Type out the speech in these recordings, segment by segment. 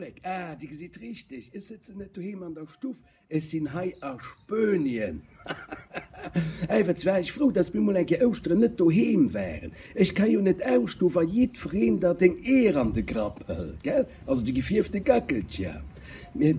Vollek, ah, Dir gesitt richteg, ech sëtzen net doheem an der Stuff, ech sinn hei a Spuenien. Hahaha, war ech frou, dass mir mol eng Kéier Ouschteren net doheem waren. Ech ka jo net ausstoen, wa jiddwereen der deng Eeër an de Grapp hëlt, gell? Also déi gefierfte Gackelcher. Mee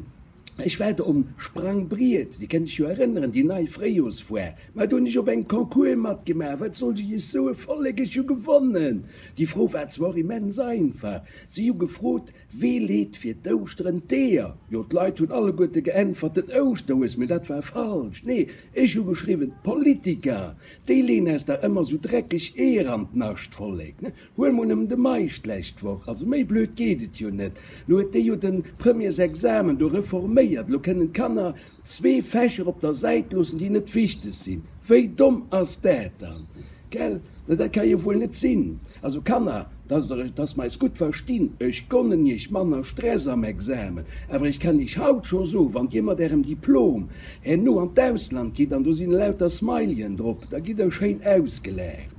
ech war do um Sprangbriet, Dir kënnt Iech jo erënneren, déi nei Fréijorsfoire. Mä do hunn ech op engem Concours matgemaach, wat sollt ech Iech soen, Vollek, ech hu gewonnen! Déi Fro war zwar och immens einfach, Si hu gefrot, Wee leet fir d'Ouschteren d'Eeër? Jo, d'Leit hunn alleguerte geäntwert, Den Ouschterhues. Mee dat war falsch. Nee, ech hu geschriwwen, D'Politiker, déi leeën eis dach ëmmer sou dreckeg Eeër an d'Nascht. Vollek, ne? Huel mol nëmmen de Meisch d'lescht Woch. Also méi blöd geet et jo net. Lo huet dee jo de Premiersexamen do reforméiert. Lo kënnen d'Kanner zwee Fächer op der Säit loossen, déi net wichteg sinn. Wéi domm ass dat dann? Gell? Na dat ka jo wuel net sinn. Also Kanner, dass der, dass mer eis gutt verstinn, ech gonnen iech manner Stress am Examen, awer ech kann iech haut scho soen, wann dir mat ärem Diplom herno an d'Ausland gitt an do sinn elauter Smileyen drop, da gitt der schéin ausgelaacht.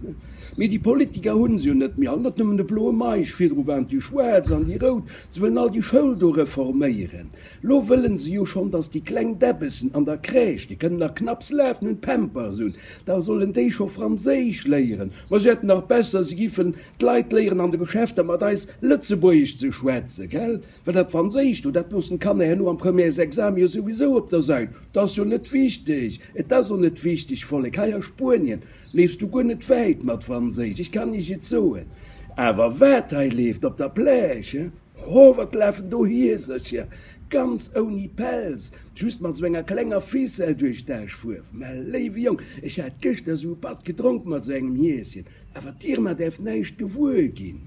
Mee déi Politiker hunn se jo net méi all, net nëmmen de bloe Meisch, virdru waren et déi schwaarz an déi rout, se wëllen all déi Schoul do reforméieren. Lo wëllen se jo schonn, dass déi kleng Däbbessen an der Crèche, déi kënnen nach knapps lafen, hunn Pampers un, da sollen déi scho Franséisch léieren. Ma se hätten nach besser, se giffen d'Leit léieren, an de Geschäfter mat eis Lëtzebuergesch ze schwätzen, gell? Well dat Franséisch do, dat loossen d'Kanner herno am Premièresexamen jo souwisou op der Säit. Dat ass jo net wichteg. Et ass och net wichteg, Vollek. Hei a Spuenien leefs du guer net wäit mat Franséisch, ech kann iech et soen. Awer wat hei leeft op der Plage, he? Ho, wat lafen do Hiesercher, ganz ouni Pelz, just mat sou enger klenger Ficelle duerch d'Aschfuerf. Mä léiwe Jong, ech hat gëschter sou e Patt gedronk mat sou engem Hieschen, awer d'Irma däerf näischt gewuer ginn.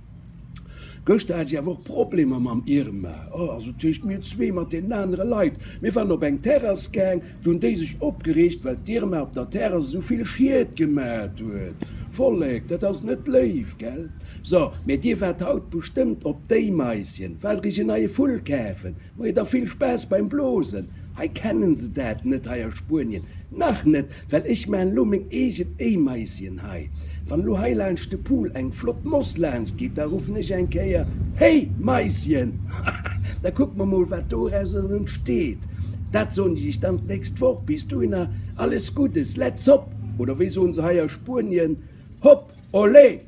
Gëschter hat ech awer och Problemer mam Irma, oh, also tëscht mir zwee, mat deenen anere Leit. Mir waren op eng Terrass gaang, Do hunn déi sech opgereegt, well d'Irma op der Terrass esou vill Schied gemat huet. Vollek, dat ass net léif, gell? So, mä dir waart haut bestëmmt op d'Éimaischen, waart iech en neie Vull kafen. Moie, da vill Spaass beim Blosen. Hei kennen se dat net, hei a Spuenien nach net, well ech maan elo meng eegen Éimaischen hei. Wann elo hei laanscht de Pool eng flott Moss laanscht geet, da ruffen ech eng Kéier, Hey Maischen! Da kucke mer mol, wat dorauser entsteet. Dat soen ech iech dann d'nächst Woch. Bis dohinner alles Guddes, let's hop! Oder wéi soen se hei a Spuenien, Hop, olé!